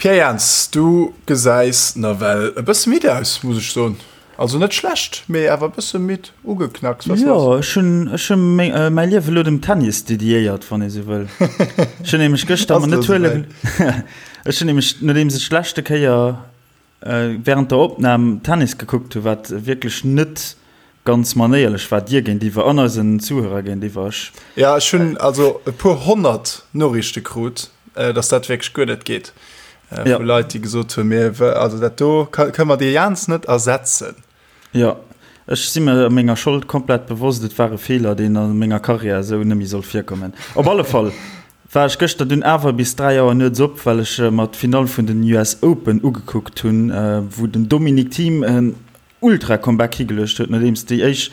Pierre Jans, du gesäis nawell e bësse midd aus, muss ech soen. Also net schlecht, mee awer e bësse midd, ugeknacks. Was Jo, ech hunn ech hunn mäi Liewe lo dem Tennis dediéiert, wann ee sou wëll. Ech hunn nämlech gëschter mer net huele Ech hunn nämlech, nodeems ech d'leschte Kéier während der Opnam Tennis gekuckt hu wat wierklech net ganz manéierlech war dir géintiwwer an eisen Zuhörer géintiwwer. Ech. Ja ech hunn also e puer 100 Noriichte krut, dass dat wierklech guer net geet. Vu Leit déi gesot hunn, mir also dat do kënne mer dee Jans net ersetzen. Jo, ech si mer menger Schold komplett bewosst. Et war e Feeler, deen a menger Karriär esou net méi soll virkommen. Op alle Fall war ech gëschter dunn awer bis 3 Auer nuets op, well ech mer d'Finall vun den US Open ugekuckt hunn, wou den Dominic Thiem en Ultra-Comeback higeluecht huet, nodeems déi éischt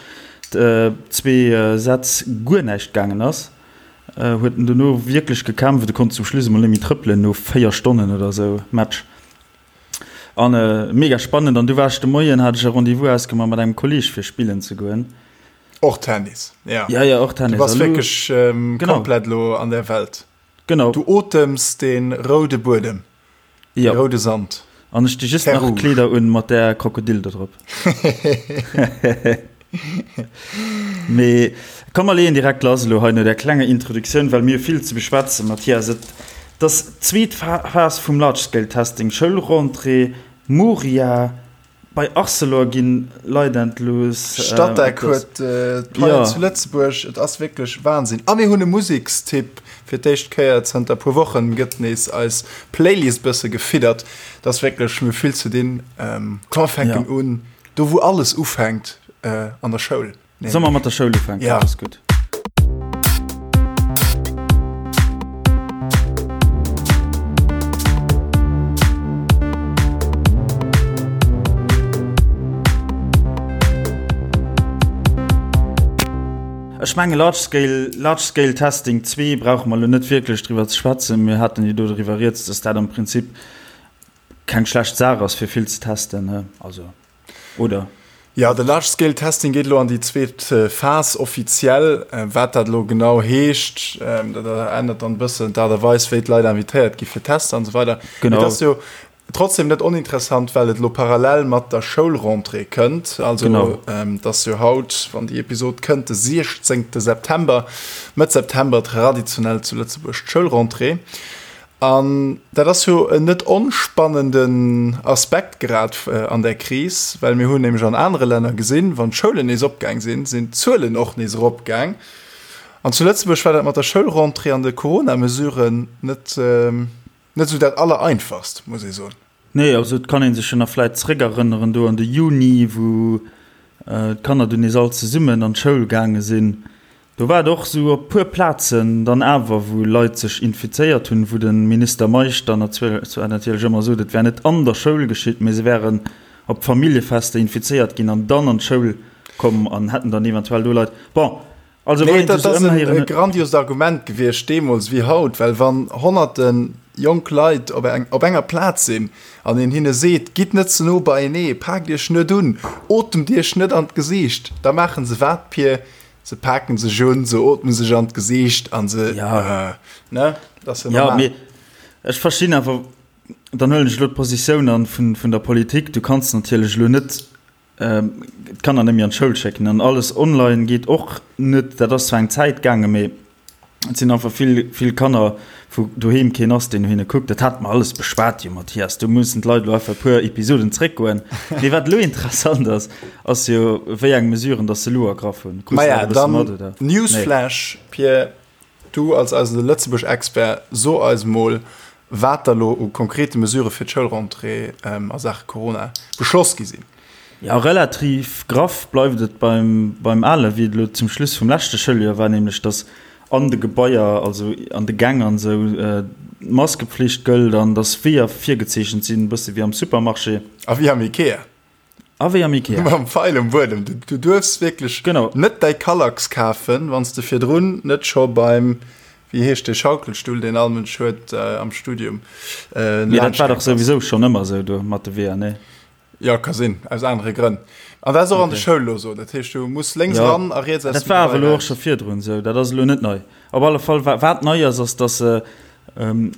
zwee Sätz guer näischt gaangen ass, huet en dono wierklech gekämpft. E konnt zum Schluss emol net méi trëppelen no 4 Stonnen oder esou Match. An mega spannend. An du war ech de Moien, hat ech e Rendez-vous ausgemaach mat engem Kolleeg fir spillen ze goen. Och Tennis, ja. Ja, ja, och Tennis. Du bass wierklech ähm, genau. komplett lo an der Welt. Genau. Du otems den roude Buedem. Ja. De roude Sand. An ech di just nach Kleeder un mat der Krokodil do drop. Mee komm mer leeën direkt lass elo hei no där klenger Introduktioun, well mir hu vill ze beschwätzen, Mathias. Et ass d'zweet Phas vum Large-Scale-Testing, Schoulrentrée, Moria, bei Arcelor ginn Leit entlooss. Statec huet d'Paien zu Lëtzebuerg. Et ass wierklech Wahnsinn. A mir hunn e Musekstipp. Fir d'éischt Kéier zënter puer Wochen gëtt nees eis Playlist bësse gefiddert. Et ass wierklech, mir hu vill ze dinn. Komm mer fänken un. Do wou alles ufänkt, an der Schoul. Solle mer mat der Schoul ufänken? Ja. Dat ass gutt. Ech menge Large Scale, Large Scale Testing 2 brauche mer elo net wierklech driwwer ze schwätzen. Mir haten jo do driwwer rieds, dass dat am Prinzip keng schlecht Saach ass fir vill ze testen, also oder? Jo, de Large Scale Testing geet elo an déi zweet Phas offiziell. Wat dat elo genau heescht, dat ännert dann e bëssen d'Aart a Weis, wéi d'Leit invitéiert gi fir Tester an esou weider. Genau. Et ass jo trotzdem net oninteressant, well et elo parallel mat der Schoulrentrée kënnt. Also et ass jo haut, wann déi Episod kënnt, de 16 September, Mëtt September traditionell zu Lëtzebuerg d'Schoulrentrée. An dat ass jo en net onspannenden Aspekt grad an där Kris, well mir hunn nämlech an anere Länner gesinn, wann d'Schoulen nees opgaang sinn, sinn d'Zuelen och nees eropgaang. An zu Lëtzebuerg war dat mat der Schoulrentrée an de Corona-Mesuren net, net esou dat Allereinfachst, muss ee soen. Nee, also et kann ee sech jo nach vläit zréckerënneren do an de Juni, wou d'Kanner dunn nees all zesummen an d'Schoul gaange sinn. Do war et och esou op puer Plazen dann awer, wou Leit sech infizéiert hunn, wou de Minister Meisch dann zwar natierlech ëmmer sot, et wär net an der Schoul geschitt, mee se wären op Familljefester infizéiert ginn an dann an d'Schoul komm an hätten dann eventuell do Leit. Bon, also wann een sech esou ëmhéieren. Dat ass e grandiost Argument gewiescht deemools wéi haut, well wann honnerte jonk Leit op op enger Plaz sinn an een hinne seet, gitt net ze no beienee, paakt iech net un, otemt iech net an d'Gesiicht, da maache se wat, Pir? Se paken sech un, se ootme sech an d'Gesiicht an se, ja. ne? Dat ass jo normal. Ja, mee ech verstinn awer, dann huelen ech elo d'Positioun an vun, vun der Politik, du kanns natierlech elo net d'Kanner net méi an d'Schoul schécken an alles online geet och net. Dat ass zwar eng Zäit gaangen, mee Et sinn einfach vill, vill Kanner, wou doheem keen ass, deen no hinne kuckt. Dat hate mer alles beschwat jo, Mathias. Do mussen d'Leit elo einfach e puer Episoden zréckgoen. Mee wat elo interessant ass, ass jo, wéi eng Mesuren datt se elo ergraff hunn. Krus du dat Maja, e bësse dann mat, oder? Nee. Newsflash, Pierre, du als eise Lëtzebuerg-Expert, so eis mol, wat da lo u konkrete Mesurë fir d'Schoulrentrée a Saache Corona beschloss gi sinn. Jo, relativ graff bleift et beim beim Ale wéi et elo zum Schluss vum leschte Schouljoer war, nämlech datt an de Gebaier, also an de Gäng an esou, d'Maskepflicht gëllt an datt Weeër virgezeechent sinn, e bësse wéi am Supermarché. A wéi am Ikea. A wéi am Ikea. Mam Feil um Buedem. Du, du duerfs wierklech genau. net däi Kallax kafen, wann s de virdrun net scho beim, wéi heescht dee Schaukelstull, deen all Mënsch huet am Studium, Mee dat war dach souwisou schonn ëmmer esou do mat de Weeër, nee? Jo, ka sinn, aus anere Grënn. An dat ass och an de Okay. Schoul elo esou. Dat heescht, du muss lénks Ja, eran a riets aus dat dem war Gebai awer elo och raus. scho virdrun esou, dat ass elo net nei. Op alle Fall, wa wat nei ass, ass, datt se ähm,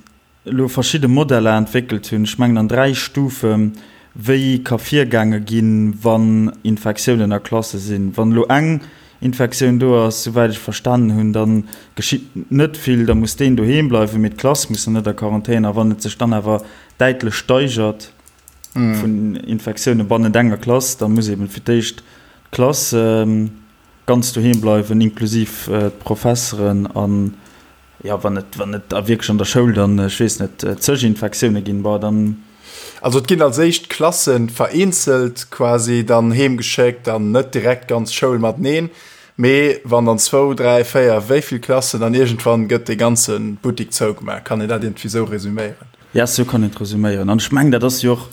elo verschidde Modeller entwéckelt hunn, ech mengen an 3 Stufen, wéi ka virgaange ginn, wann Infektiounen a Klasse sinn. Wann elo eng Infektioun do ass, souwäit ech verstanen hunn, da geschitt net vill, da muss deen doheem bleiwen, mee d'Klass muss dann net a Quarantän. A wann et sech dann awer däitlech steigert vun Infektioune bannent enger Klass, da muss eeben fir d'éischt d'Klass ganz doheem bleiwen, inklusiv d'Professeren an, jo, wann et, wann et da wierklech an der Schoul dann, ech weess net, zeg Infektioune ginn, bon, dann. Also et ginn als éischt d'Klasse vereenzelt quasi dann heem geschéckt an net direkt d'ganz Schoul mateneen, mee wann dann zwou, dräi, véier, wéi vill Klassen, dann iergendwann gëtt dee ganze Buttik zougemaach. Kann een dat iergendwéi sou resuméieren? Ja, sou kann een et resuméieren. An ech mengen, dat ass jo och,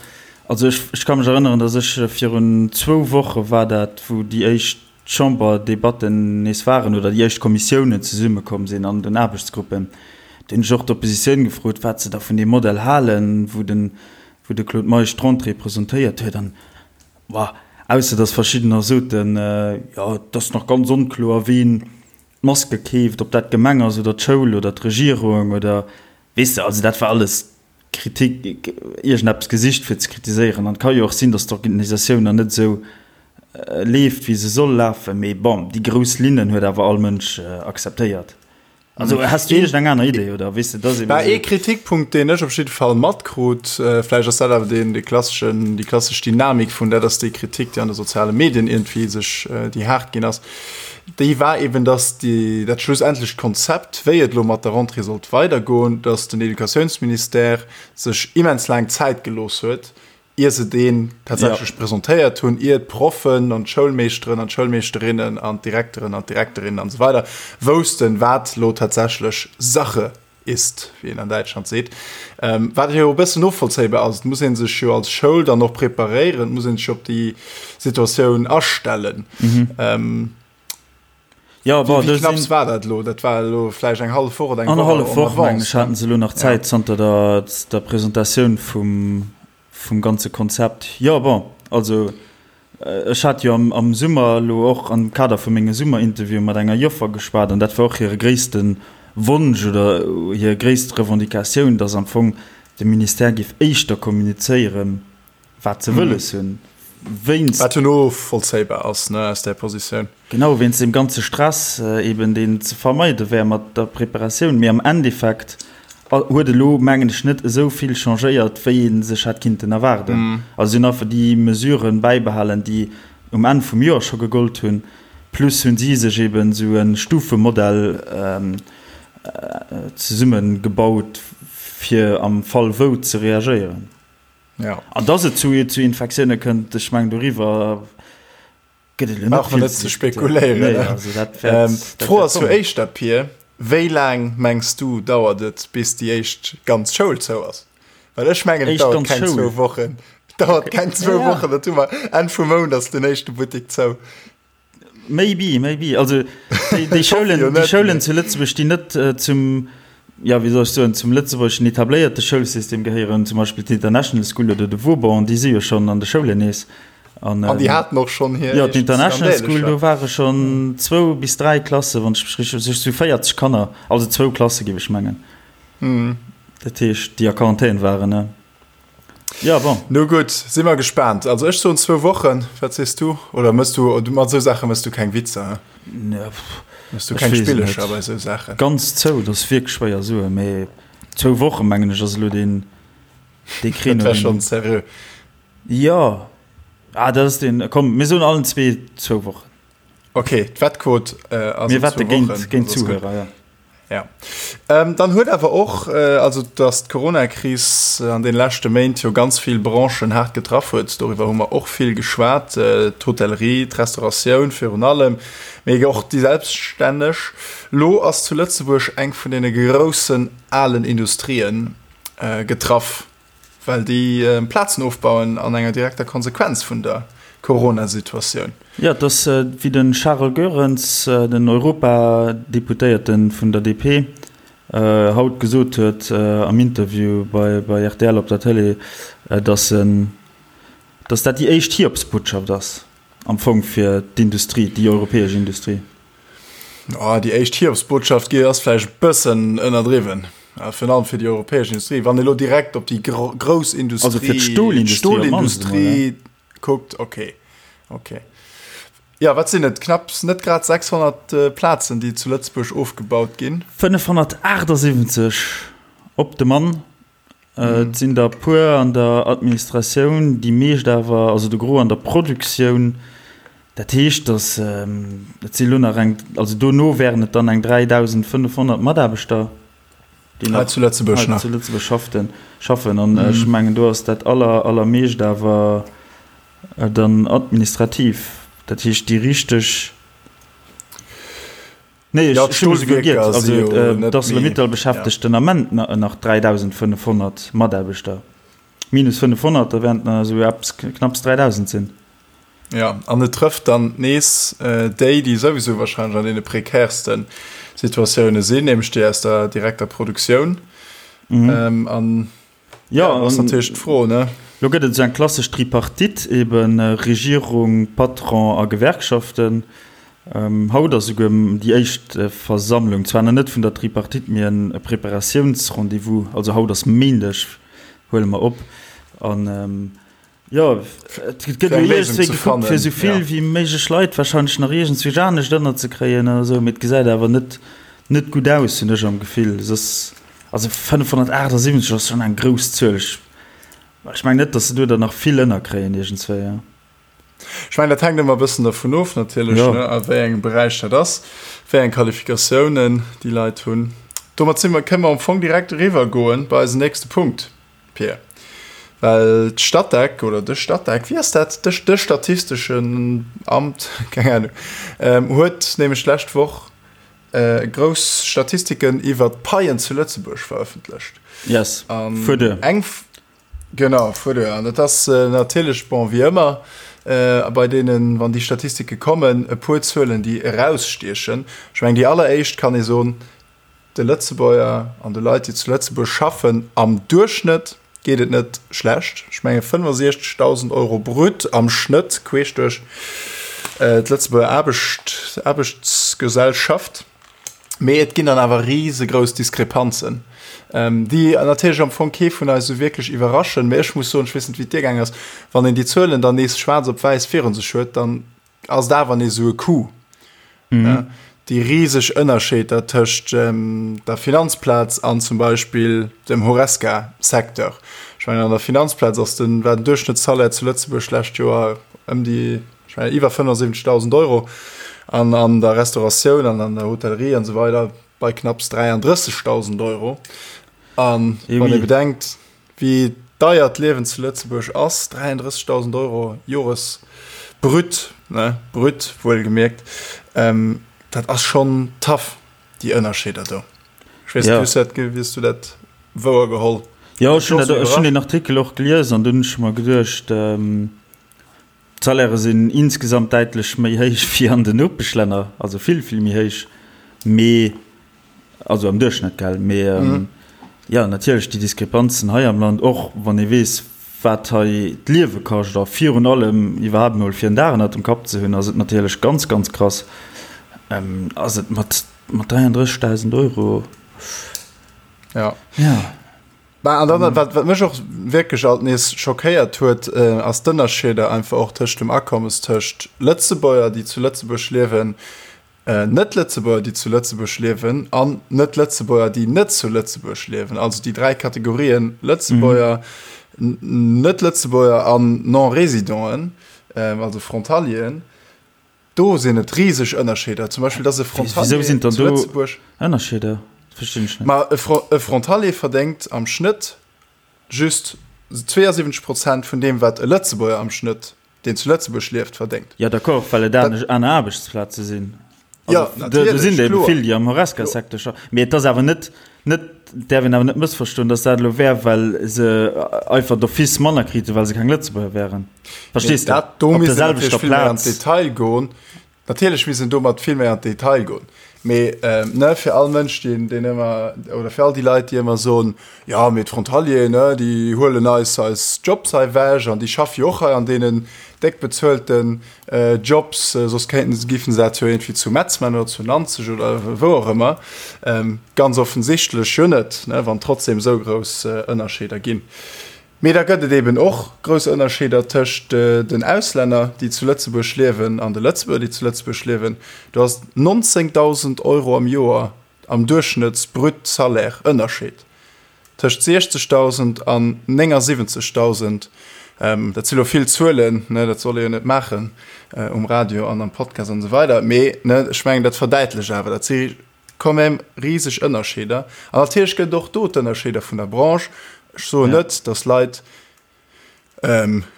also ech, ech ka mech erënneren, datt ech virun zwou Woche war dat, wou déi éischt Chamberdebatten nees waren oder déi éischt Kommissiounen zesummekomm sinn an den Aarbechtsgruppen, do hunn ech och d'Oppositioun gefrot, wat se da vun deem Modell halen, wou den, wou de Claude Meisch d'Rentrée presentéiert huet. An, boah, ausser datt verschiddener soten, jo, et ass nach ganz onkloer, ween d'Maske keeft, ob dat d'Gemeng ass oder d'Schoul oder d'Regierung oder, weess de, also dat war alles Kritik, iergendeppes gesicht fir ze kritiséieren. An et ka jo och sinn, datt d'Organisatioun nach net esou leeft, wéi se soll lafen. Mee bon, déi grouss Linnen huet awer all Mënsch akzeptéiert. Also has du iergendeng aner Idee oder weess de, dass eben esou. Ee Kritikpunkt, deen ech op jidde Fall matkrut, vläicht ass dat awer deen, dee klasseschen, déi klassesch Dynamik vun dat ass déi Kritik, déi an de soziale Medien iergendwéi sech, déi haart ginn ass, déi war eben, dass déi, dat schlussendlecht Konzept, wéi et elo mat der Rentrée sollt weidergoen, dass den Educatiounsministère sech immens laang Zäit gelooss huet, ier se deen tatsächlech presentéiert hunn, ier d'Proffen an d'Schoulmeeschteren an d'Schoulmeeschterinnen an d'Direkteren an d'Direkterinnen an esou weider woussten, wat elo tatsächlech Sache ist, wéi een an Däitschland seet, wat jo e bëssen novollzéibar ass. Et muss ee sech jo als Schoul dann och preparéieren, et muss ee sech op déi Situatioun astellen. Jo, bon, wéi knapps war dat elo? Dat war elo vläicht eng hallef Woch oder eng Woch. Annerhallef Woch, mengen ech, haten se elo nach Zäit zanter der Presentatioun vum Vum ganze Konzept, jo, bon, also ech hat jo am Summer elo och am Kader vu menge Summerinterviewe mat enger Joffer geschwat an dat war och hire gréisste Wonsch oder hir gréisst Revendicatioun, datt am Fong de Ministère géif éischter kommunizéieren, wat se wëlles hunn, wéinst. Wat jo novollzéibar ass, ne, aus där Positioun. Genau, wéinst deem ganze Stress eben, deen ze vermeide wär mat der Preparatioun. Mee am Endeffekt huet elo, mengen ech, net esou vill changéiert, wéi ee sech hätt kinnten erwaarden. Also si hunn einfach déi Mesuren bäibehalen, déi um Enn vum Joer scho gegollt hunn, plus hunn si sech eben esou e Stufemodell zesummegebaut, fir am Fall wou ze reagéieren. An dass et zu Infektioune kënnt, ech mengen, doriwwer Gëtt et elo net vill ze spekuléieren. Nee, also dat wäert, ähm, dat D'Fro ass jo éischter, Pir, wéi laang mengs du dauert et, bis déi éischt ganz Schoul zou ass? Well ech mengen, et dauert keng zwou Wochen. Dauert okay. keng zwou ja. Wochen, dat hu mer Enn vum Mount ass den éischte Buttek zou. Maybe, maybe. Also déi, déi Schoulen, déi Schoulen zu Lëtzebuerg, déi net äh, zum ja, wéi soll ech soen, zum lëtzebuergeschen etabléierte Schoulsystem gehéieren, zum Beispill d'International School oder de Vauban, déi si jo schonn an de Schoulen nees. An, an déi haten och schonn hir. Jo, d'International School, do ware schonn zwou bis dräi Klasse, wann ech mech richteg, sech zu 40 Kanner, also zwou Klasse géif ech mengen. Mm. Dat heescht, déi a Quarantän waren, ne? Ja, bon. No gutt, si mer gespaant. Also ech soen zwou Wochen. Wat sees du? Oder mëss du, mat esou Saache mëss du keng Witzer, he? Ne, pff. Mëss du keng Spillecher bei esou Saachen? Ganz zou, dat ass wierklech schwéier soen, mee zwou Woche mengen ech ass elo deen, dee Créneau. Dat wär schonn seriö. Jo, ah, dat ass deen, komm, mir soen allen zwee zwou Wochen. Okay, d'Wettquot ass op zwou Wochen. Mir wette géint d'Zuhörer, ja. Ja. Ähm, dann huet awer och, äh, also dass d'Corona-Kris an den leschte Méint jo ganz vill Branchen haart getraff huet, doriwwer hu mer och vill geschwat, äh, d'Hotellerie, d'Restauratioun virun allem, mee och déi Selbststänneg. Lo ass zu Lëtzebuerg eng vun deene groussen alen Industrien äh, getraff. Well déi Plazen ofbauen an enger direkter Konsequenz vun der Corona-Situatioun. Jo, et ass, wéi de Charel Goerens, den Europadeputéierte vun der DP, haut gesot huet am Interview bei rtl op der Tëlee, datt en, datt dat déi éischt Hiobsbotschaft ass am Fong fir d'Industrie, déi europäesch Industrie. Oh, déi éischt Hiobsbotschaft ass vläicht e bëssen ënnerdriwwen. Virun allem fir déi europäesch Industrie. Wann ee lo direkt op déi grouss Industrie, also fir d'Stolindustrie, d'Stolindustrie kuckt, okay, okay. Jo, wat sinn et? Knapps, net grad 600 Plazen, déi zu Lëtzebuerg ofgebaut ginn. 578 op de Mann. Et sinn der e puer an der Administratioun, déi meescht awer, also de Gros an der Produktioun. Dat heescht, datt et si lo nach eng, also dono wären et dann eng 3.500 Mataarbechter, déi nach zu Lëtzebuerg nach zu Lëtzebuerg schafften, schaffen. An ech mengen, do ass dat aller, allermeescht awer dann administrativ. Dat heescht, déi richteg. Nee, ech hu mech esouguer giert. Also d'Arcelor-Mittal beschäftegt den Ament nach 3.500 Mataarbechter. Minus 500, da wären et nach esou eppes knapps 3.000 sinn. Jo, an et trëfft dann nees déi, déi souwisou wahrscheinlech an deene prekäerste Situatioune sinn, nämlech déi aus der direkter Produktioun. An Jo, ja, ass natierlech d'Fro, ne? Lo gëtt et esou eng klassesch Tripartite, eben Regierung, Patron a Gewerkschaften. Haut ass esouguer déi éischt Versammlung, zwar nach net vun der Tripartite, mee e Preparatiounsrendez-vous. Also haut ass Méindeg, huele mer op. An jo, et gëtt elo iergendwéi gekuckt, fir esou vill wéi méiglech Leit warscheinlech nach iergendzwousch anescht ënnerzekréien oder esou, mee et gesäit awer net net gutt aus, hunn ech am Gefill. Soss. Also 578 ass schon eng grouss Zuel. Ech, ech mengen net, dass se do der nach vill ënnerkréien iergendzwéi. Ja. Ech mengen, dat hänkt ëmmer e bëssen dervun of natierlech, ja. ne, a wéi engem Beräich dat ass, wéi eng Qualifikatiounen déi Leit hunn. Domat si mer, kënne mer am Fong direkt eriwwer goen bei eisen nächste Punkt, Pir. Well d'Statec oder de Statec, wéi ass dat, de, de statisteschen Amt, keng Ahnung, ähm, huet nämlech d'lescht Woch grouss Statistiken iwwer d'Paien zu Lëtzebuerg verëffentlecht. Yes, fuer duer. Eng, genau, fuer duer. An dat ass natierlech, bon, wéi ëmmer bei deenen, wann déi Statistike kommen, e puer Zuelen, déi erausstiechen. Ech mengen, déi alleréischt kann ee soen, De Lëtzebuerger an de Leit, déi zu Lëtzebuerg schaffen, am Duerchschnëtt geet et net schlecht. Ech menge 65.000 Euro brut am Schnëtt queesch duerch d'Lëtzebuerger Aarbecht, Aarbechtsgesellschaft. Mee et ginn dann awer risegrouss Diskrepanzen, déi natierlech am Fong kee vun eis esou wierklech iwwerraschen. Mee ech muss soen, ech weess net, wéi et dir gaang ass, wann een déi Zuelen dann nees schwaarz op wäiss virun sech huet, dann ass et awer nees esou e Coup. Mhm. Déi riseg Ënnerscheeder tëscht der Finanzplaz an zum Beispill dem Horesca-Secteur. Ech mengen, an der Finanzplaz ass den, war den Duerchschnëttssalaire zu Lëtzebuerg d'lescht Joer ëm déi, ech mengen, iwwer 75.000 Euro an an der Restauratioun an an der Hotellerie an esou weider bei knapps 33.000 Euro. An wann ee bedenkt, Wéi deier d'Liewen zu Lëtzebuerg ass, 33.000 Euro Jores brut, ne, brut wuelgemierkt, dat ass schonn tough, déi Ënnerscheeder do. Ech weess net, wéi s du dat, wéi s du dat wouer geholl? Jo, ech hunn dat, ech hunn deen Artikel och gelies an dunn hunn ech mer geduecht, d'Salairë sinn insgesamt däitlech méi héich wéi an den Nopeschlänner, also vill, vill méi héich, mee Also am Duerchschnëtt, gell? Mee jo, natierlech déi Diskrepanzen hei am Land, och wann ee weess, wat hei d'Liewe kascht a virun allem iwwerhaapt emol fir en Dag ënnert dem Kapp ze hunn, ass et natierlech ganz, ganz krass. Ass et mat 33.000 Euro? Ja. Ja. Bah, an dann, wat, wat mech och wierklech alt nees schockéiert huet, ass d'Ënnerscheeder einfach och tëscht dem Akommes tëscht Lëtzebuerger, déi zu Lëtzebuerg liewen, Net-Lëtzebuerger, déi zu Lëtzebuerg liewen, an Net-Lëtzebuerger, déi net zu Lëtzebuerg liewen. Also déi 3 Kategorien, Lëtzebuerger, Net-Lëtzebuerger an Non-Résidenten, also Frontalieren. Do sinn et riseg Ënnerscheeder. Zum Beispill, dass e Frontalier zu Lëtzebuerg. Ënnerscheeder? Verstinn ech net. Ma e Frontalier verdéngt am Schnëtt just 72 Prozent vun deem, wat e Lëtzebuerger am Schnëtt deen zu Lëtzebuerg lieft, verdéngt. Jo, d'accord, well et aner Aarbechtsplaze sinn. Jo, natierlech, do sinn der ebe vill, déi am Horesca-Secteur schaffen. Mee et ass awer net, net, et däerf een awer net mëssverstoen, datt dat elo wär, well se einfach d'office manner kriten, well se keng Lëtzebuerger wären. Verstees de? Dat do misst een natierlech vill méi an d'Detail goen. Natierlech misst een domat vill méi an d'Detail goen. Mee ne, fir all Mënsch, deen, deen ëmmer, oder fir all déi Leit, déi ëmmer soen, jo, mee d'Frontalieren, ne, déi huelen eis eis Jobs hei ewech an déi schaffe jo och hei an deenen déck bezuelten Jobs, soss kéinten se, géifen se dat jo iergendwéi zu Metz man oder zu Nanzeg oder wou och ëmmer. Ganz offensichtlech jo net, ne, wann trotzdem esou grouss Ënnerscheeder ginn. Mee da gëtt et eben och grouss Ënnerscheeder tëscht den Auslänner, déi zu Lëtzebuerg liewen, an de Lëtzebuerger, déi zu Lëtzebuerg liewen. Do ass 19.000 Euro am Joer am Duerchschnëtts-Brut-Salaire Ënnerscheed tëscht 60.000 an 79.000. Dat si lo vill Zuelen, ne, dat soll ee jo net maachen um Radio an am Podcast an esou weider, mee ne, ech mengen, dat verdäitlecht awer, dat si quand même riseg Ënnerscheeder. An natierlech gëtt et och do d'Ënnerscheeder vun der Branche. Ech soen net, datt Leit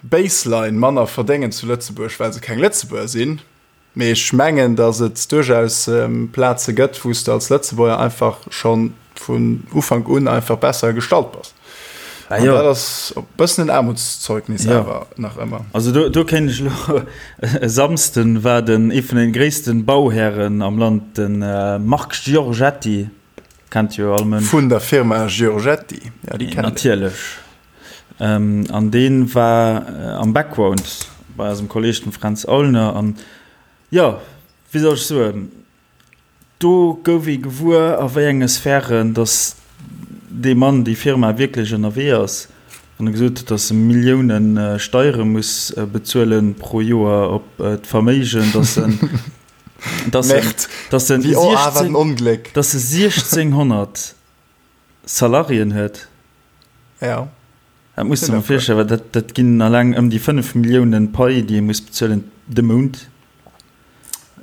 baseline manner verdéngen zu Lëtzebuerg, well se keng Lëtzebuerger sinn, mee ech mengen, datt et duerchaus Plaze gëtt, wou s de als Lëtzebuerger einfach scho vun Ufank un einfach besser gestallt bass. Ah, jo. Dat ass e bëssen en Aarmutszeugnis ja. awer nach ëmmer. Also do, do kéint ech lo e Samsden war den ee vun den gréissten Bauhären am Land, den äh, Marc Giorgetti, kennt jo all Mënsch. Vun der Firma Giorgetti, ja, déi kennt Natierlech. Ähm, an deen war äh, am Background bei eisem Kolleg dem Fränz Aulner an ja, wéi soll ech soen, Do gouf ee gewuer, a wéi enge Sphären datt dee Mann, déi Firma wierklech ënnerwee ass, wann e gesot huet, datt e Millioune Steiere muss bezuele pro Joer op d'Verméigen, datt en, datt en, datt en 16, datt e 1.600 Salariéen huet. Ja. Dat muss de mer virstellen, well dat, dat ginn alleng ëm déi 5 Milliounen Pai, déi ee muss bezuelen de Mount.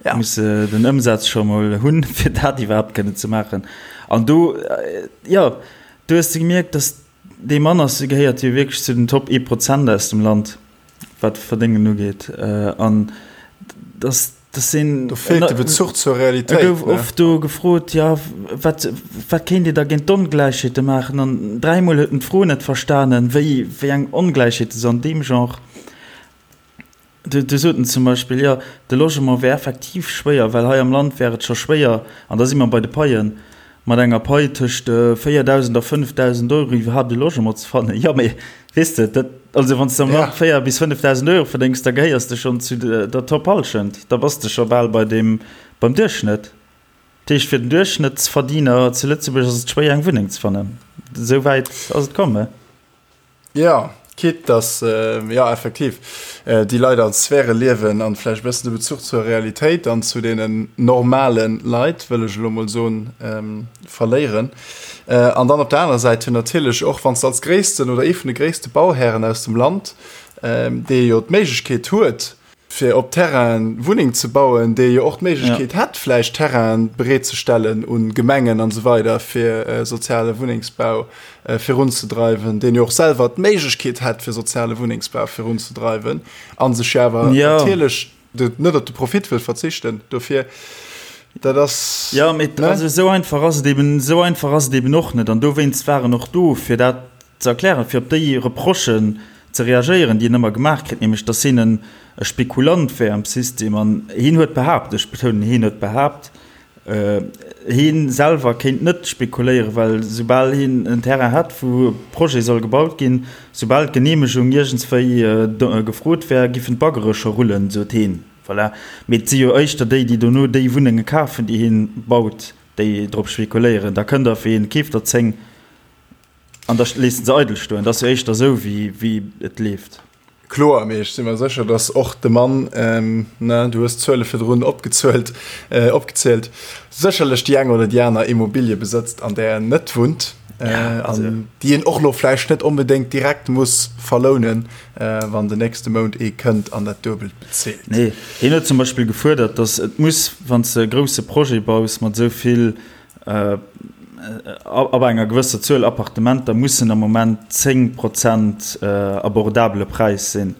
Ja. Muss äh, den Ëmsaz scho mol hunn, fir dat iwwerhaapt kënnen ze maachen. An do, äh, ja, du hues de gemierkt, dass dee Mann ass, gehéiert jo wierklech zu den Top 1 Prozent aus dem Land, wat Verdéngen ugeet. Äh, an dass Das sinn, Do feelt de Bezuch zur Realitéit. E gouf oft do gefrot, jo, wat, wat kéint Dir da géint d'Ongläichheete maachen? An dräimol huet en d'Fro net verstanen, wéi, wéi eng Ongläichheete se an deem Genre. Du, du sot en zum Beispill, jo, de Logement wär effektiv schwéier, well hei am Land wär et scho schwéier, an da si mer bei de Paien, Mat enger Pai tëscht 4.000 a 5.000 Euro iwwerhaapt e Logement ze fannen, jo, mee weess de, dat, also wann s de am Land 4 bis 5.000 Euro verdéngs, da gehéiers de schonn zu der Top-Hallschent, da bass de scho bal bei deem, beim Duerchschnëtt. Dat heescht, fir den Duerchschnëttsverdiener zu Lëtzebuerg ass et schwéier eng Wunneng ze fannen. Esou wäit ass et komm, he? Jo, quitte dass, jo effektiv, déi Leit an Sphäre liewen an vläicht e bëssen de Bezuch zur Realitéit an zu deenen normale Leit, wëll ech elo mol soen, verléieren. An dann op der anerer Säit jo natierlech och, wann s de als gréissten oder ee vun de gréisste Bauhären aus dem Land, dee jo d'Méiglechkeet huet, fir op Terrainen Wunneng ze bauen, dee jo och d'Méiglechkeet hätt, vläicht Terrainen bereetzestellen un Gemengen an esou weider, fir soziale Wunnengsbau virunzedreiwen, deen jo och selwer d'Méiglechkeet hätt, fir soziale Wunnengsbau virunzedreiwen, a sech jo awer natierlech net op de Profit wëll verzichten dofir. Dat ass. Jo, mee also esou einfach ass et eben, esou einfach ass et eben och net. An dowéinst war en och do, fir dat ze erklären, fir op déi Reprochen ze reagéieren, déi en ëmmer gemaach kritt, nämlech datt hien en e Spekulant wär am System. An hien huet behaapt, ech betounen, hien huet behaapt, hie selwer kéint net spekuléieren, well soubal hien en Terrain hätt, wou e Projet soll gebaut ginn, soubal d'Geneemegung iergendswéi gefrot wär, giffen d'Baggere scho rullen, sot hien. Voilà. Mee et si jo éischter déi, déi dono déi Wunnenge kafen, déi hien baut, déi drop spekuléieren. Da kënnt der fir een, keeft der 10. An da léisst en se eidel stoen. Dat ass jo éischter esou, wéi et leeft. Kloer, mee ech si mer sécher, datt och de Mann, ne, du hues d'Zuele virdrun opgezuelt, opgezielt, sécherlech déi eng oder déi aner Immobilie besëtzt, an där en net wunnt, an déi en och elo vläicht net onbedéngt direkt muss verlounen, wann den nächste Mount ee kënnt an dat Duebelt bezilt. Nee, hien huet zum Beispill gefuerdert, datt et muss, wann s de e grousse Projet baus mat esou vill Ab enger gewësser Zuel Appartementer mussen am Moment 10 Prozent abordabele Präis sinn.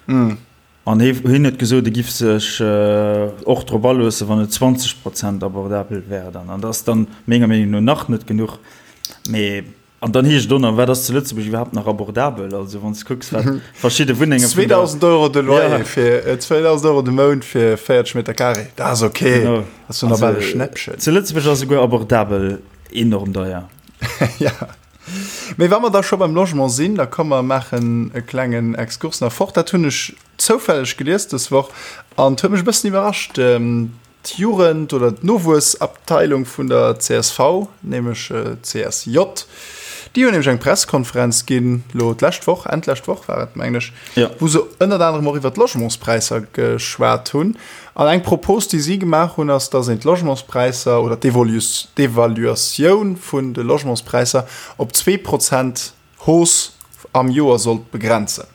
An hien huet gesot, e giff sech och drop aloossen, wann et 20 Prozent abordabel wär dann. An dat ass dann menger Meenung no nach net genuch. Mee. An dann heescht et och nach, wat ass zu Lëtzebuerg iwwerhaapt nach abordabel? Also wann s de kucks, wat verschidde Wunnenge vun der. 2.000 Euro de Loyer ja. fir 2.000 Euro de Mount fir 40 Meter Carré, dat ass ok. Genau. Dat ass jo nach bal e Schnäppchen. Zu Lëtzebuerg ass esouguer abordabel enorm deier. Ja. Mee wa mer da scho beim Logement sinn, da komm mer maachen e klengen Exkurs nach fort. Dat hunn ech zoufälleg gelies dës Woch an et huet mech e bëssen iwwerrascht. D'Jugend oder d'Nowuessabteilung vun der csv, nämlech d'CSJ, déi hunn nämlech eng Presskonferenz ginn, elo d'lescht Woch, Enn d'lescht Woch war et, mengen ech, wou se ënnert anerem och iwwer d'Logementspräisser geschwat hunn. An eng Propos, déi si gemaach hunn, ass, datt een d'Logementspräisser oder d'Evaluatioun vun de Logementspräisser op 2 Prozent Hausse am Joer sollt begrenzen.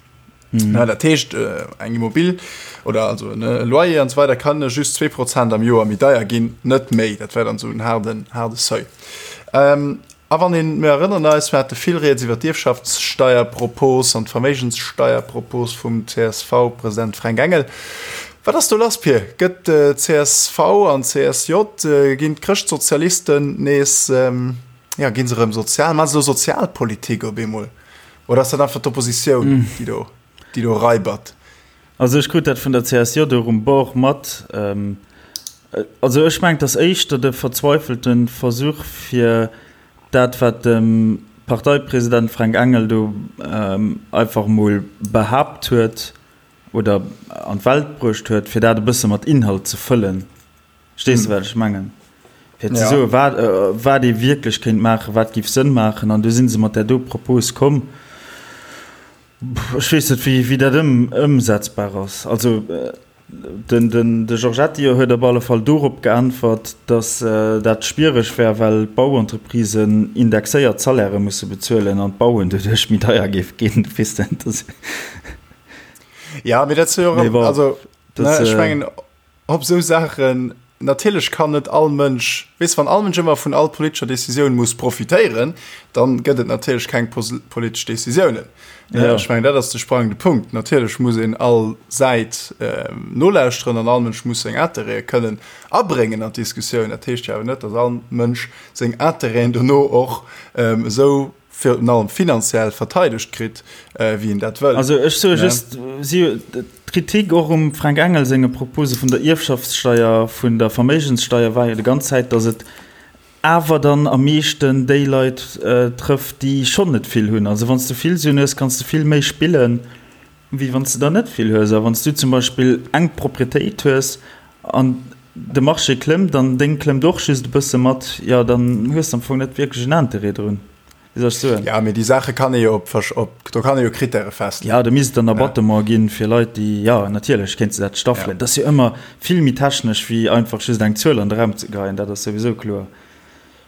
Mhm. Na, dat heescht äh, eng Immobil oder also ne Loyer an so weiter kann just 2 Prozent am Joer méi deier ginn, net méi. Dat wär dann so en harden, harde Seuil. Ähm, a wann een, mir erënnern eis, mir hate vill Rieds iwwer d'Ierfschaftssteierpropos an d'Verméigenssteierpropos vum CSV-President Fränk Engel. Wat ass do lass, Pir? Gëtt äh, csv an CSJ, äh, ginn d'Chrëschtsozialisten nees ähm, Ja, ginn se erëm sozial? Maache se elo Sozialpolitik op eemol? Oder ass dat einfach d'Oppositioun, déi do, déi do raibert? Also ech krut dat vun der CSJ och um Bord mat. Also ech mengen, et ass éischter de verzweifelte Versuch, fir dat, wat de Parteipresident Fränk Engel do einfach emol behaapt huet oder an d'Welt bruecht huet, fir dat e bësse mat Inhalt ze fëllen. Verstees de, wat ech mengen? Fir ze soen, wat, wat ee wierklech kéint maachen, wat géif Sënn maachen. An du si se mat där do Propos komm. Ech weess net, wéi, wéi dat ëm, ëmsetzbar ass. Also den, den, de Giorgetti huet op alle Fall dorop geäntwert, datt dat schwiereg wär, well d'Bauentreprisen indexéiert Salairë musse bezuelen an d'Bauen doduerch méi deier géif ginn. Weess de, dat. Ja, mee dat ass jo och, also, ne, ech mengen, Op esou Saachen, natierlech kann net all Mënsch, weess, wann all Mënsch ëmmer vun all politescher Decisioun muss profitéieren, dann gëtt et natierlech keng politesch Decisiounen. Ja. Ech mengen, dat ass de sprangende Punkt. Natierlech muss een all Säit nolauschteren an all Mënsch muss seng Interêtë kënnen abréngen an d'Diskussioun. Dat heescht jo awer net, datt all Mënsch seng Interêten dono och esou virun allem finanziell verteidegt kritt, wéi en dat wëll. Also ech soe just, si, d'Kritik och um Fränk Engel senge Propose vun der Ierfschaftssteier, vun der Verméigenssteier war jo déi ganz Zäit, datt et awer dann am meeschten déi Leit trëfft, déi schonn net vill hunn. Also wann s de vill Suen hues, kanns de vill méi spillen, wéi wann s de der net vill hues. A wann s du zum Beispill eng Proprietéit hues an de Marché klëmmt an deng klëmmt och just e bësse mat, jo dann hues de am Fong net wierklech en Interêt drun. Wéi soll ech soen? Ja, mee déi Saache kann ee jo op, op, do kann ee jo Krittäre festleeën. Ja, do misst et dann Abattement ginn fir Leit, déi, jo natierlech kéints de dat staffelen. Dat ass jo ëmmer vill méi technesch wéi einfach just eng Zuel an de Raum ze geheien, dat ass souwisou kloer.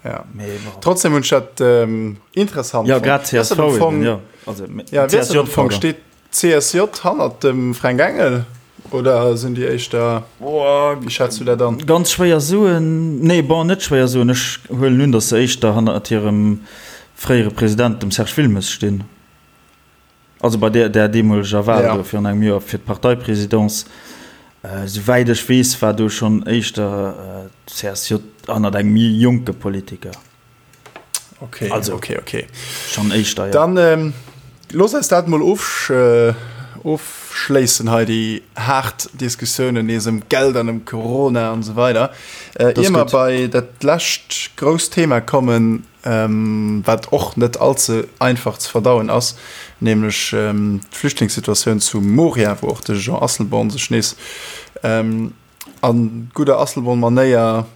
Ja. Mee bon. Trotzdem hunn ech dat interessant fonnt. Ja, grad csv eben, jo. Also, ja, CSJ, pardon. Steet CSJ hannert dem Fränk Engel oder sinn déi éischter, wéi schätz du dat an? Ganz schwéier soen, nee bon net schwéier soen, ech huelen un, datt se éischter hannert hirem fréiere President, dem Serge Wilmes stinn. Also bei där där deemoleger Wahl do virun engem Joer fir d'Parteipresidence, souwäit ech weess, war do schonn éischter d'CSJ hannert engem méi jonke Politiker. Okay, also, okay, okay. Schon éischter, ja. Dann ähm, looss eis dat mol ofsch, äh, ofschléissen hei, déi haart Diskussiounen nees ëm Geld an ëm Corona an esou weider. Äh, ier mer bei dat lescht grousst Thema kommen, ähm, wat och net allze einfach ze verdauen ass, nämlech ähm, d'Flüchtlingssituatioun zu Moria, wou och de Jean Asselborn sech nees ähm, a gudder Asselborn-Manéier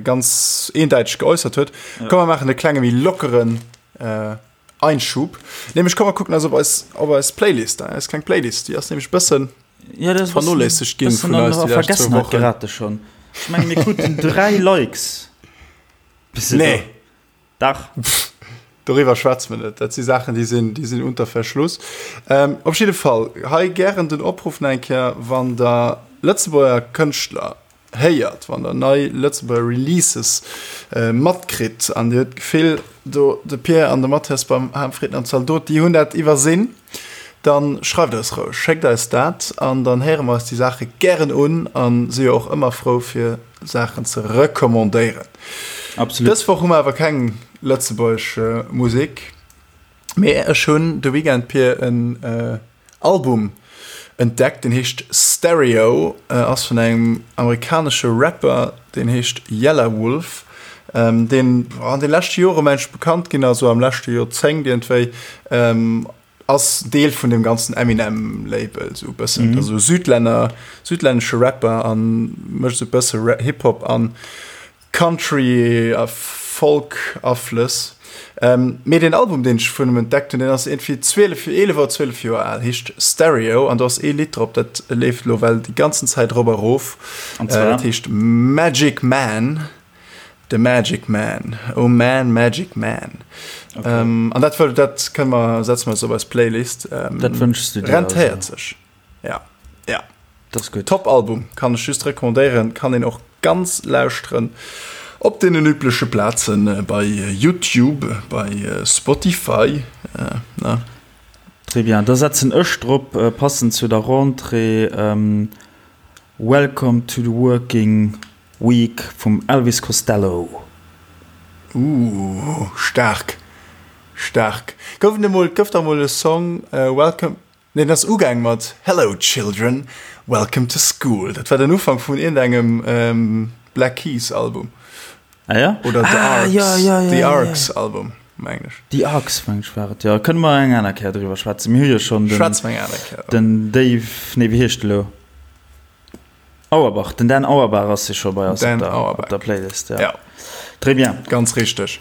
ganz eendäiteg geäussert huet. Ja. Komm, mer maachen e klenge méi lockeren äh, Einschub. Nämlech komm mer kucken eis op eis, op eis Playlist, eis kleng Playlist, déi ass nämlech bëssen ja, das vernoléissegt ginn vun eis déi lescht zwou Wochen. Gerate schon. Ech menge mir kruten 3 Likes. Nee. Dach. Doriwwer schwätze mer net. Dat si Saachen, déi sinn, déi sinn unter Verschluss. Ähm, op jidde Fall, hei gären den Opruff nach eng Kéier, wann Der Lëtzebuerger Kënschtler héiert, wann Der nei Lëtzebuerger Releases matkritt an Dir hutt d'Gefill, do de Pierre an de Mathias beim Harmfrieden an Zaldot, déi hunn dat iwwersinn, dann schreift eis roueg, schéckt eis dat an dann héiere mer eis déi Saache gären un a si jo och ëmmer frou fir Saachen ze recommandéieren. Absolut. Dës Woch hu mer awer keng lëtzebuergesch Musek, mee ech hunn de Weekend, Pir, en Album entdeckt, deen heescht Stereo, ass vun engem amerikanesche Rapper, deen heescht Yelawolf, deen an de leschte Jore mengen ech bekannt ginn ass, esou am leschte Joerzéngt iergendwéi, ass Deel vun dem ganzen Eminem Label esou e bëssen, mm. also Südlänner, südlännesche Rapper an mécht esou e bësse Hip-Hop an Country a Folk Aflëss. Ähm, mee den Album deen ech vun em entdeckt hunn, deen ass iergendwéi 12, 11 oder 12 Joer al, heescht Stereo an do ass ee Lidd drop, dat leeft lo well déi ganzen Zäit erop a rof. An zwar? Äh, dat heescht Magic Man. The Magic Man, oh man, Magic Man. Okay. Ähm, an dat, dat kënne mer, setze mer eis op eis Playlist. Ähm, dat wënschs du dir. Rentéiert sech. Ja, ja. Dat ass gutt. Top Album, kann ech just recommandéieren, kann een och ganz lauschteren op deenen übleche Plazen, äh, bei YouTube, bei äh, Spotify. Äh, ne? Très bien. Da setzen ech drop, äh, passend zu der Rentrée, ähm, Welcome to the Working Week vum Elvis Costello. Ooh, staark, staark. Gouf et emol, gouf da mol e Song Welcome, nee den ass ugaang mat Hello children, welcome to school. Dat war den Ufank vun iergendengem Black Keys Album. Ah ja? Oder The ah, Arcs, ja, ja, ja, The ja, Arcs ja. Album, mengen ech. The Arcs, mengen ech war et, jo. Kënne mer eng aner Kéier driwwer schwätzen. Mir hu jo schonn den, Schwätze mer eng aner Kéier. den Dave, nee wéi heescht e lo? Auerbach, den Dan Auerbach ass jo scho bei eis Dan op der, Auerbach. op der Playlist. Ja. Ja. Très bien. Ganz richteg.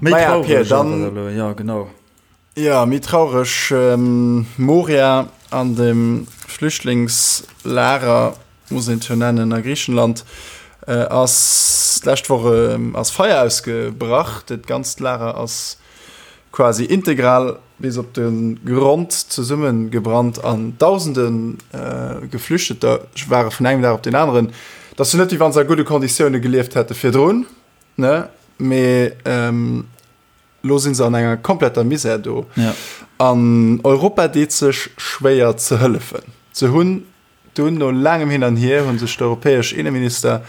Méi Maja, traureg Pir, dann- awer elo, ja genau. Ja, méi traureg. Ähm, Moria an dem Flüchtlingslager, muss een et jo nennen, a Griichenland, äh, ass d'lescht Woch ähm, ass Feier ausgebrach. Dat ganzt Lager ass quasi integral bis op de Grond zesummegebrannt an dausende Geflüchteter ware vun engem Dag op deen aneren, et ass jo net wéi wa se a gudde Konditioune gelieft hätte virdrun, ne, mee elo si se an enger kompletter Misär do an Europa deet sech schwéier ze hëllefen. Se hunn Dunn, no laangem Hin an Hier, hu sech d'europäesch Inneminister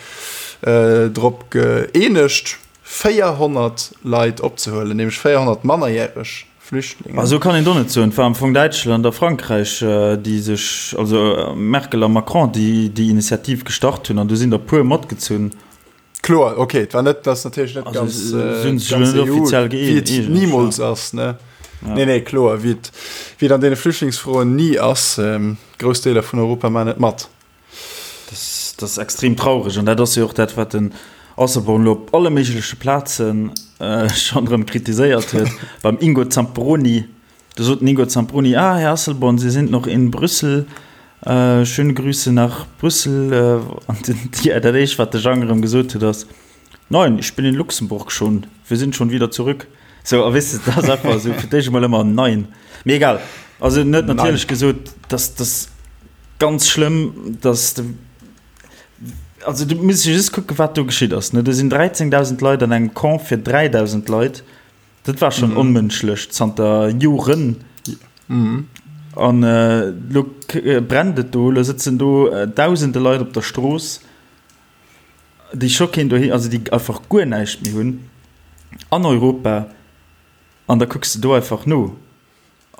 drop gëeenegt, 400 Leit opzehuelen, nämlech 400 mannerjäreg Flüchtlingen. Esou kann een et och net soen. Et war am Fong Däitschland a Frankräich, déi sech, also Merkel a Macron, déi déi Initiativ gestart hunn, an du sinn der puer matgezunn. Kloer, ok, et war net, ass natierlech net Also, ganz, se hunn sech ganz elo net EU, offiziell wéi et gëeenegt, nimools ja. ass, ne? Ja. Nee, nee, kloer, wéi et, wéi et an deene Flüchtlingsfroen ni ass, grouss Deeler vun Europa maachen net mat. Dat ass extrem traureg an dat ass jo och dat, wat den Asselborn elo op alle méigleche Plaze schonn erëm kritiséiert huet. Beim Ingo Zamperoni, do sot den Ingo Zamperoni, Ah, Här Asselborn, Sie sind noch in Brüssel, schöne Grüße nach Brüssel. An dat éischt, wat de Jang erëm gesot huet, ass, Nein, ich bin in Luxemburg schon, wir sind schon wieder zurück. Sou, a weess de, dat ass einfach esou fir d'éischt emol ëmmer Nein. Mee egal. Also en huet natierlech gesot, dass dass ganz schlëmm, dass de, also du muss just kucke wat do geschitt ass, ne. Do sinn 13.000 Leit an engem Camp fir 3.000 Leit. Dat war schonn onmënschlech zanter Joren. An elo brennt et do, elo sëtzen do dausende Leit op der Strooss. déi scho keen doheem, also déi einfach guer näischt méi hunn an Europa an da kucks de do einfach no,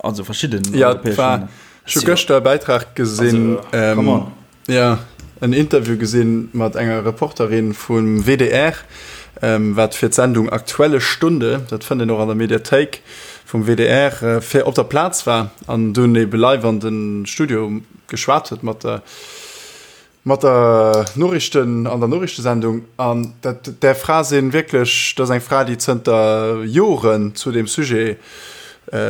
also verschidden Ja, europäesch war, Länner. ech hu gëschter e Bäitrag gesinn, Also, come on. ja, en Interview gesinn mat enger Reporterin vum WDR, ähm, wat fir d'Sendung Aktuelle Stunde, dat fënnt een och an der Mediathéik vum WDR, fir op der Plaz war an dunn ebe live an de Studio geschwat huet mat der Mat der Noriichten, an der Noriichtesendung. An dat, där Fra sinn wierklech, dat ass eng Fra, déi zënter Joren zu deem Sujet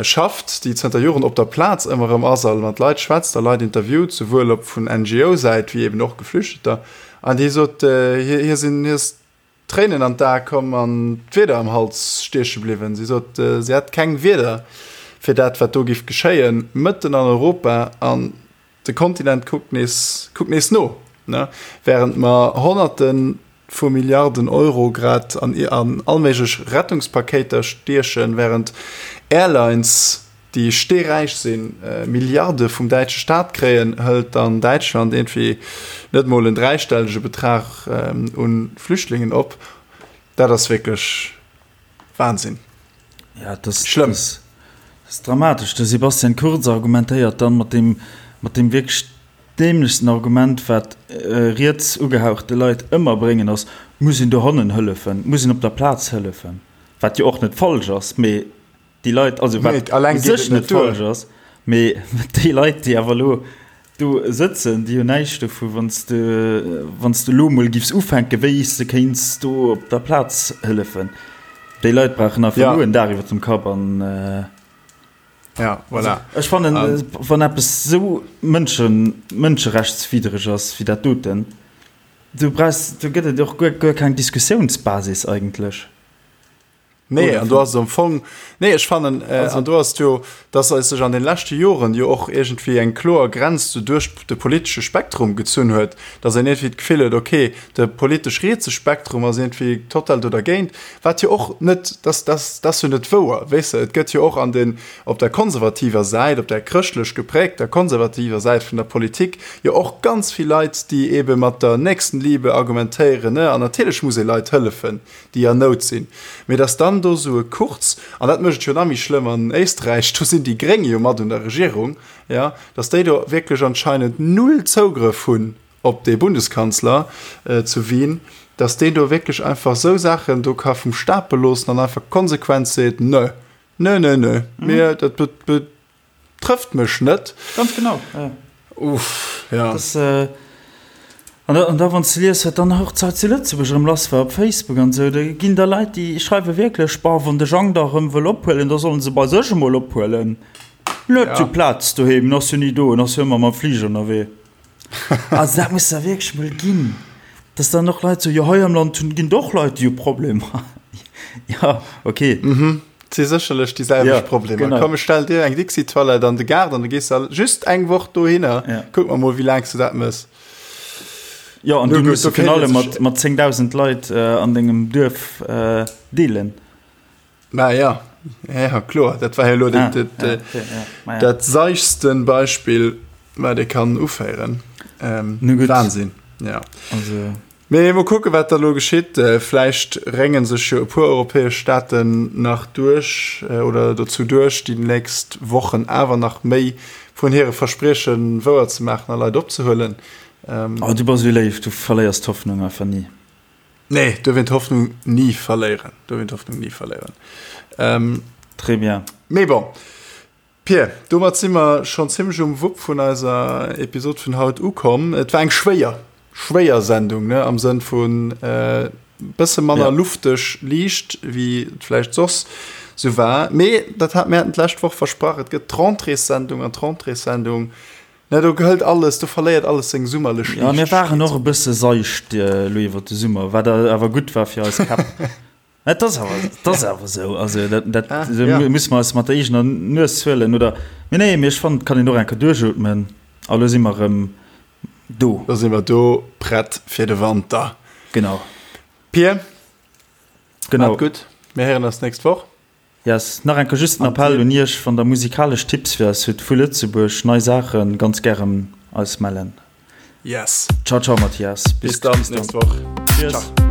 schafft, déi zënter Joren op der Plaz ëmmer erëm ass a mat Leit schwätzt a Leit interviewt, souwuel op vun NGO-Säit wéi eben och Geflüchteter. An déi sot, hir, hir sinn, hir ass d'Tréinen an d'Ae komm an d'Wierder am Hals stieche bliwwen. Si sot, si hätt keng Wierder fir dat, wat do giff geschéien, mëtten an Europa. An De Kontinent kuckt nees, kuckt nees no, ne? Während mer Honnerte vu Milliarden Euro grad an, an allméiglech Rettungspakéiter stiechen, während Airlines, déi steeräich sinn, Milliarde vum däitsche Staat kréien, hëlt dann Däitschland iergendwéi net mol en dräistellege Betrag u Flüchtlingen op. Dat ass wierklech Wahnsinn. Ja, das, Schlëmm. Das, das ist dramatesch. De Sebastian Kurz argumentéiert dann mat dem, mat dem wierklech dämlechsten Argument, wat äh, riets ugehauchte Leit ëmmer bréngen, ass, muss een dohannen hëllefen, muss een op der Plaz hëllefen. Wat jo och net falsch ass, mee déi Leit, also wat u sech net falsch ass, mee déi Leit, déi awer elo do sëtzen, déi hunn näischt dovu, wann s de, wann s de elo emol giffs ufänken, wéi s de kéints do op der Plaz hëllefen. Déi Leit brauchen einfach elo en Dag iwwer dem Kapp an. Ja, voilà. Ech fannen, wann eppes esou mënschen, mënscherechtswiddereg ass wéi dat doten, du brauchs, do gëtt et och guer, guer keng Diskussiounsbasis eigentlech. Nee, an do ass et am Fong, nee, ech fannen, äh, an do ass et jo, dass eis sech an den leschte Joren jo och iergendwéi eng kloer Grenz do duerch de politesche Spektrum gezunn huet, dass een iergendwéi d'Gefill huet, okay, de politesch rietse Spektrum ass iergendwéi total do dergéint, wat jo och net, dass, dass, dat ass jo net wouer, weess de, et gëtt jo och an den, op der konservativer Säit, op der chrëschtlech geprägter konservativer Säit vun der Politik jo och ganz vill Leit, déi eebe mat der Nächstenliebe argumentéieren, ne, an natierlech muss ee Leit hëllefen, déi an Nout sinn, mee datt dann do esou e Kurz, an dat mécht et jo nach méi schlëmm an Éisträich, do sinn déi Gréng jo mat un der Regierung, jo, datt déi do wierklech anscheinend null Zougrëff hunn op dee Bundeskanzler zu Wien, datt deen do wierklech einfach esou Saachen do ka vum Stapel loossen an einfach konsequent seet, Nö, nö, nö, nö, mir, dat Trëfft mech net. Ganz genau, ja. Uff, ja. Das, äh, an da, an da wann s de lies, wat dann och zu Lëtzebuerg erëm lass war op Facebook an esou, da ginn der Leit, déi schreiwe wierklech, Bah, wann de Jang da erëm wëll ophuelen, da solle se bei sech emol ophuelen. Net zu Plaz doheem, en ass jo ni do, en ass jo ëmmer mam Fliger ënnerwee. Also dat muss der wierklech mol ginn, dass dann och Leit soen, jo hei am Land hunn, ginn et och Leit, déi hu Problemer. Ja, okay. Mhm. Et si sécherlech déi selwecht ja, Problemer. Genau. Komm, ech stell dir eng Dixi-Toilette an de Gaart an du gees da just eng Woch dohinner. Ja. Kuck mer mol, wéi laang s du dat mëss. Ja, an du muss virun allem mat, mat 10.000 Leit äh, an dengem Duerf äh, deelen. Mä ja, ja kloer, dat war jo elo dat, ah, dat, ja, okay, ja. dat seichsten Beispill, wat ee kann uféieren. Ähm, Wahnsinn, ja. Also. Mee mol kucken, wat da lo geschitt. Äh, vläicht rénge sech jo e puer europäesch Staaten nach duerch äh, oder dozou duerch, déi nächst Wochen awer nach méi vun hire Versprieche wouer ze maachen a Leit opzehuelen. Ähm, oh, du bass esou léif, du verléiers d'Hoffnung einfach ni. Nee, duerf een d'Hoffnung ni verléieren. Duerf een d'Hoffnung ni verléieren. Ähm, Très bien. Mee bon. Pir, domat si mer schonn zimmlech um Wupp vun eiser Episod vun haut ukomm. Et war eng schwéier, schwéier Sendung, ne, am Sënn vun äh, bësse manner ja. lufteg liicht, wéi et vläicht soss sou war. Mee dat hat mir haten d'lescht Woch versprach, et gëtt d'Rentréessendung an d'Rentréessendung Ne, do gehëlt alles, do verléiert alles seng summerlech Ja, mir waren och e bësse seicht elo iwwer de Summer, wat awer gutt war fir eis Käpp. Et ass awer, et ass awer esou. Also dat, dat ah, so ja. musse mer eis mat der eegener Nues huelen oder. Mee nee, mee ech fannen, et kann een och eng Kéier duerchootmen. A lo si mer erëm do. Lo si mer do, prett fir de Wanter. Genau. Pir, genau. Maat gutt, mir héieren eis d'nächst Woch. Yes, nach eng Kéier just den Appell un iech, wann der musikalesch Tipps fir eis hutt vu Lëtzebuerg, nei Saachen, ganz gären eis mellen. Yes. Ciao ciao Mathias, bis dann, nächst Woch. Cheers. Ciao.